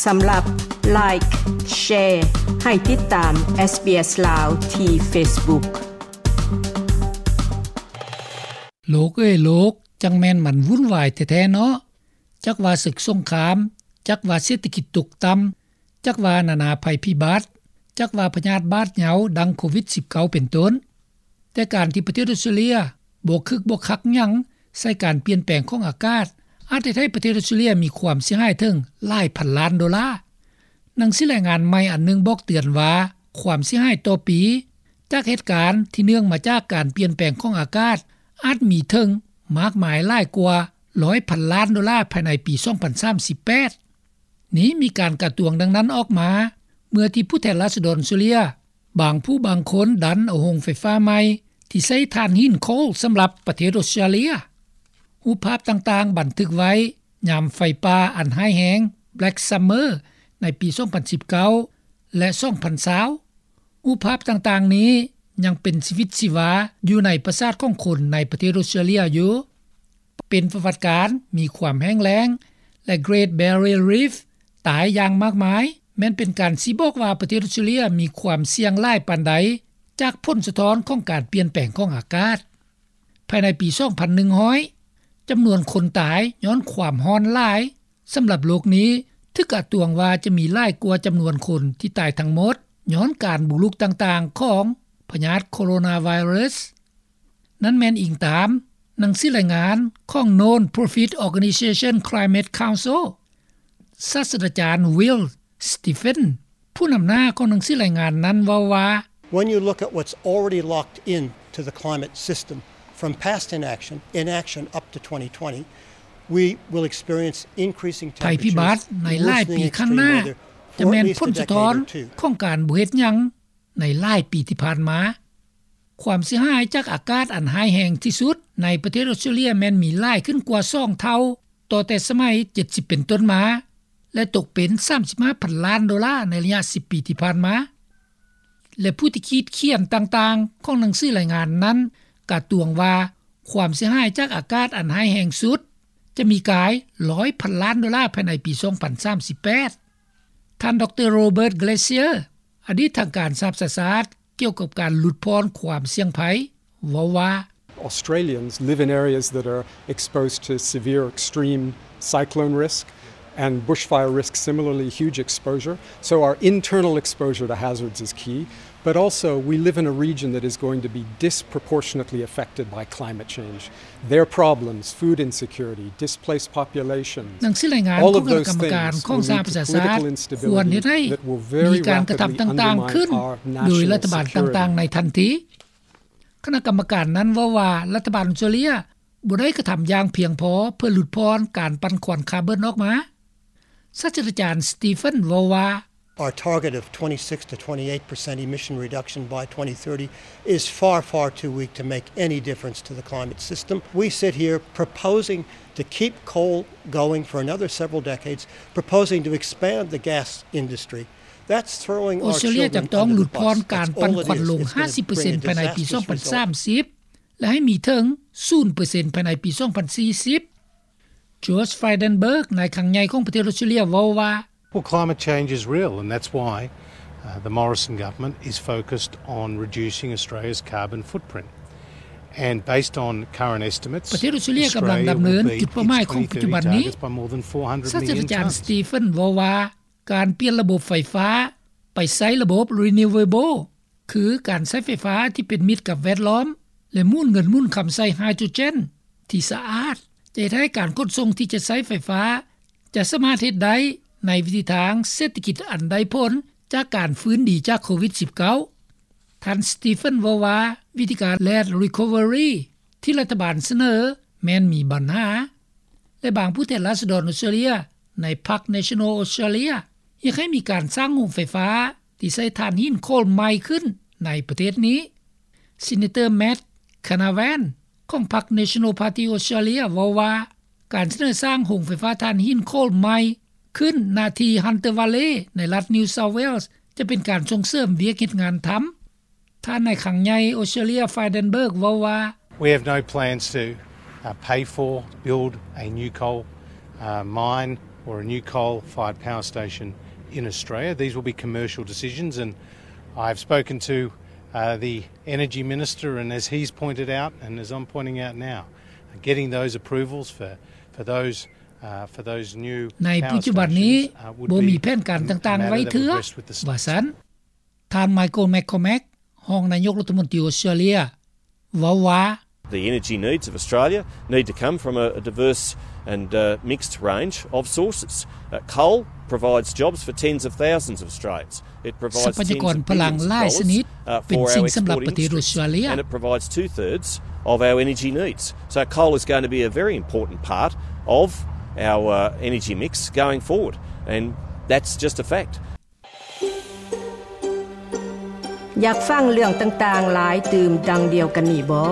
ສຳລັບ Like, Share ໃຫ້ຕິດຕາມ SBS ລາວ ທີ່ Facebook. ໂລກເອີຍໂລກ, ຈັ່ງແມ່ນມັນວຸ່ນວາຍແທ້ໆເນາະ. ຈັກວ່າເສິກສົງຄາມ, ຈັກວ່າເສດຖະກິດຕົກຕ່ຳ, ຈັກວ່ານານາໄພພິບັດ, ຈັກວ່າພະຍາດບາດເຍົາດັ່ງໂຄວິດສິບເກົ້າເປັນຕົ້ນ. ແຕ່ການທີ່ປະເທດອົດສະຕຣາເລຍບໍ່ຄຶກບໍ່ຄັກຫຍັງໃສ່ການປ່ຽນແປງຂອງອາກາດ ອາດເຮັດໃຫ້ປະເທດອົດສະຕຣາເລຍມີຄວາມເສຍຫາຍເຖິງຫຼາຍພັນລ້ານໂດລາ. ໜັງສືລາຍງານໃໝ່ອັນໜຶ່ງບອກເຕືອນວ່າ ຄວາມເສຍຫາຍຕໍ່ປີຈາກເຫດການທີ່ເນື່ອງມາຈາກການປ່ຽນແປງຂອງອາກາດ ອາດມີເຖິງມາກມາຍຫຼາຍກວ່າຮ້ອຍພັນລ້ານໂດລາພາຍໃນປີສອງພັນສາມສິບແປດ. ນີ້ມີການກະຕວງດັ່ງນັ້ນອອກມາ ເມື່ອທີ່ຜູ້ແທນລາຊະດອນອົດສະຕຣາເລຍບາງຜູ້ບາງຄົນດັນເອົາໂຮງໄຟຟ້າໃໝ່ທີ່ໃຊ້ຖ່ານຫີນໂຄລສຳລັບປະເທດອົດສະຕຣາເລຍ. ຮູບພາບຕ່າງໆບັນທຶກໄວ້ຍາມໄຟປ່າອັນຮ້າຍແຮງ Black Summer ໃນປີສອງພັນສິບເກົ້າ ແລະ ສອງພັນຊາວ. ຮູບພາບຕ່າງໆນີ້ຍັງເປັນຊີວິດຊີວາຢູ່ໃນປະສາດຂອງຄົນໃນປະເທດອົດສະຕຣາເລຍຢູ່. ເປັນປະຫວັດການມີຄວາມແຫ້ງແລ້ງ ແລະ Great Barrier Reef ຕາຍຢ່າງມາກມາຍ ແມ່ນເປັນການຊີ້ບອກວ່າປະເທດອົດສະຕຣາເລຍມີຄວາມສ່ຽງຫຼາຍປານໃດຈາກຜົນສະທ້ອນຂອງການປ່ຽນແປງຂອງອາກາດ. ພາຍໃນປີສອງພັນໜຶ່ງຮ້ອຍ ຈຳນວນຄົນຕາຍຍ້ອນຄວາມຮ້ອນຫຼາຍ ສຳລັບໂລກນີ້ຖືກກະຕວງວ່າຈະມີຫຼາຍກວ່າຈຳນວນຄົນທີ່ຕາຍທັງໝົດຍ້ອນການບຸກລຸກຕ່າງໆຂອງພະຍາດໂຄໂຣນາໄວຣັສ. ນັ້ນແມ່ນອີງຕາມໜັງສືລາຍງານຂອງ Non-Profit Organization Climate Council. ສາດສະດາຈານ Will Stephens ຜູ້ນຳໜ້າຂອງໜັງສືລາຍງານນັ້ນເວົ້າວ່າ, When you look at what's already locked in to the climate system from past inaction, inaction up to twenty twenty, we will experience increasing temperatures, ໄພພິບັດໃນຫຼາຍປີຂ້າງໜ້າຈະແມ່ນຜົນສະທ້ອນຂອງການບໍ່ເຮັດຫຍັງໃນຫຼາຍປີທີ່ຜ່ານມາ. ຄວາມເສຍຫາຍຈາກອາກາດອັນຮ້າຍແຮງທີ່ສຸດໃນປະເທດອົດສະຕຣາເລຍແມ່ນມີຫຼາຍຂຶ້ນກວ່າສອງເທົ່າ ຕໍ່ແຕ່ສະໄໝເຈັດສິບເປັນຕົ້ນມາ ແລະ ຕົກເປັນສາມສິບຫ້າພັນລ້ານໂດລາໃນໄລຍະສິບປີທີ່ຜ່ານມາ. ແລະ ຜູ້ທີ່ຂີດຂຽນຕ່າງໆຂອງໜັງສືລາຍງານນັ້ນກະຕວງວ່າ ຄວາມເສຍຫາຍຈາກອາກາດອັນຮ້າຍແຮງສຸດຈະມີກາຍຮ້ອຍພັນລ້ານໂດລາພາຍໃນປີສອງພັນສາມສິບແປດ. ທ່ານ ດຣ. Robert Glazier ອະດີດທາງການສະຫະປະຊາຊາດ ກ່ຽວກັບການຫຼຸດຜ່ອນຄວາມສ່ຽງໄພ ເວົ້າວ່າ, Australians live in areas that are exposed to severe extreme cyclone risk and bushfire risk, similarly huge exposure. So our internal exposure to hazards is key, but also we live in a region that is going to be disproportionately affected by climate change. Their problems, food insecurity, displaced populations, ໜັງສືລາຍງານຂອງຄະນະກຳມະການຂອງສະຫະປະຊາຊາດ ຄວນເຮັດໃຫ້ມີການກະທຳຕ່າງໆຂຶ້ນໂດຍລັດຖະບານຕ່າງໆໃນທັນທີ. ຄະນະກຳມະການນັ້ນເວົ້າວ່າ ລັດຖະບານອົດສະຕຣາເລຍບໍ່ໄດ້ກະທຳຢ່າງພຽງພໍເພື່ອຫຼຸດຜ່ອນການປັ່ນຄວັນຄາບອນອອກມາ. ສາດສະດາຈານ Stephens ເວົ້າວ່າ, Our target of twenty-six to twenty-eight percent emission reduction by twenty thirty is far, far too weak to make any difference to the climate system. We sit here proposing to keep coal going for another several decades, proposing to expand the gas industry. That's throwing our children under the bus. ອົດສະຕຣາເລຍຈະຕ້ອງຫຼຸດຜ່ອນການປັ່ນຄວັນລົງຫ້າສິບເປີເຊັນພາຍໃນປີສອງພັນສາມສິບ ແລະ ໃຫ້ມີເຖິງສູນເປີເຊັນພາຍໃນປີສອງພັນສີ່ສິບ. George Frydenberg ນາຍຄັງໃຫຍ່ຂອງປະເທດອົດສະຕຣາເລຍເວົ້າວ່າ, Well, climate change is real, and that's why, uh, the Morrison government is focused on reducing Australia's carbon footprint. And based on current estimates, ປະເທດອົດສະຕຣາເລຍກຳລັງດຳເນີນຈຸດເປົ້າໝາຍຂອງປັດຈຸບັນນີ້. ສາດສະດາຈານ Stephens ເວົ້າວ່າ, ການປ່ຽນລະບົບໄຟຟ້າໄປໃຊ້ລະບົບ renewable ຄືການໃຊ້ໄຟຟ້າທີ່ເປັນມິດກັບແວດລ້ອມ ແລະ ໝູນເງິນໝູນຄຳໃສ່ໄຮໂດຣເຈນທີ່ສະອາດ ຈະເຮັດໃຫ້ການຂົນສົ່ງທີ່ຈະໃຊ້ໄຟຟ້າ ຈະສາມາດເຮັດໄດ້ໃນວິທີທາງເສດຖະກິດອັນໄດ້ຜົນຈາກການຟື້ນດີຈາກໂຄວິດສິບເກົ້າ. ທ່ານ Stephens ເວົ້າວ່າ ວິທີການ Red Recovery ທີ່ລັດຖະບານສະເໜີແມ່ນມີບັນຫາ ແລະ ບາງຜູ້ແທນລາຊະດອນອົດສະຕຣາເລຍໃນພັກ National Australia ຢາກໃຫ້ມີການສ້າງໂຮງໄຟຟ້າທີ່ໃຊ້ຖ່ານຫີນໂຄລໃໝ່ຂຶ້ນໃນປະເທດນີ້. Senator Matt Canavan ຂອງພັກ National Party Australia ເວົ້າວ່າ ການສະເໜີສ້າງໂຮງໄຟຟ້າຖ່ານຫີນໂຄລໃໝ່ຂຶ້ນໜ້າທີ່ Hunter Valley ໃນລັດ New South Wales ຈະເປັນການສົ່ງເສີມວຽກເຮັດງານທຳ. ທ່ານນາຍຄັງໃຫຍ່ອົດສະຕຣາເລຍ Frydenberg ເວົ້າວ່າ, We have no plans to, uh, pay for, build a new coal, uh, mine or a new coal-fired power station in Australia. These will be commercial decisions, and I've spoken to uh, the energy minister, and as he's pointed out, and as I'm pointing out now, getting those approvals for, for those, uh, for those new ໃນປັດຈຸບັນນີ້ ບໍ່ມີແຜນການຕ່າງໆໄວ້ເທື່ອ ວ່າຊັ້ນ. ທ່ານ Michael McCormack ຮອງນາຍົກລັດຖະມົນຕີອົດສະຕຣາເລຍ ເວົ້າວ່າ The energy needs of Australia need to come from a, a diverse and uh, mixed range of sources. Uh, coal provides jobs for tens of thousands of Australians. It provides tens of billions of dollars, uh, for our exporting industries. And it provides two-thirds of our energy needs. So coal is going to be a very important part of our uh, energy mix going forward. And that's just a fact. ຢາກຟັງເລື່ອງຕ່າງໆຫຼາຍຕື່ມດັ່ງດຽວກັນນີ້ບໍ?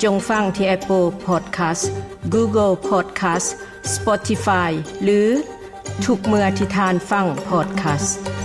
ຈົ່ງຟັງທີ່ Apple Podcast, Google Podcast, Spotify ຫຼື ທຸກເມື່ອທີ່ທ່ານຟັງ podcast.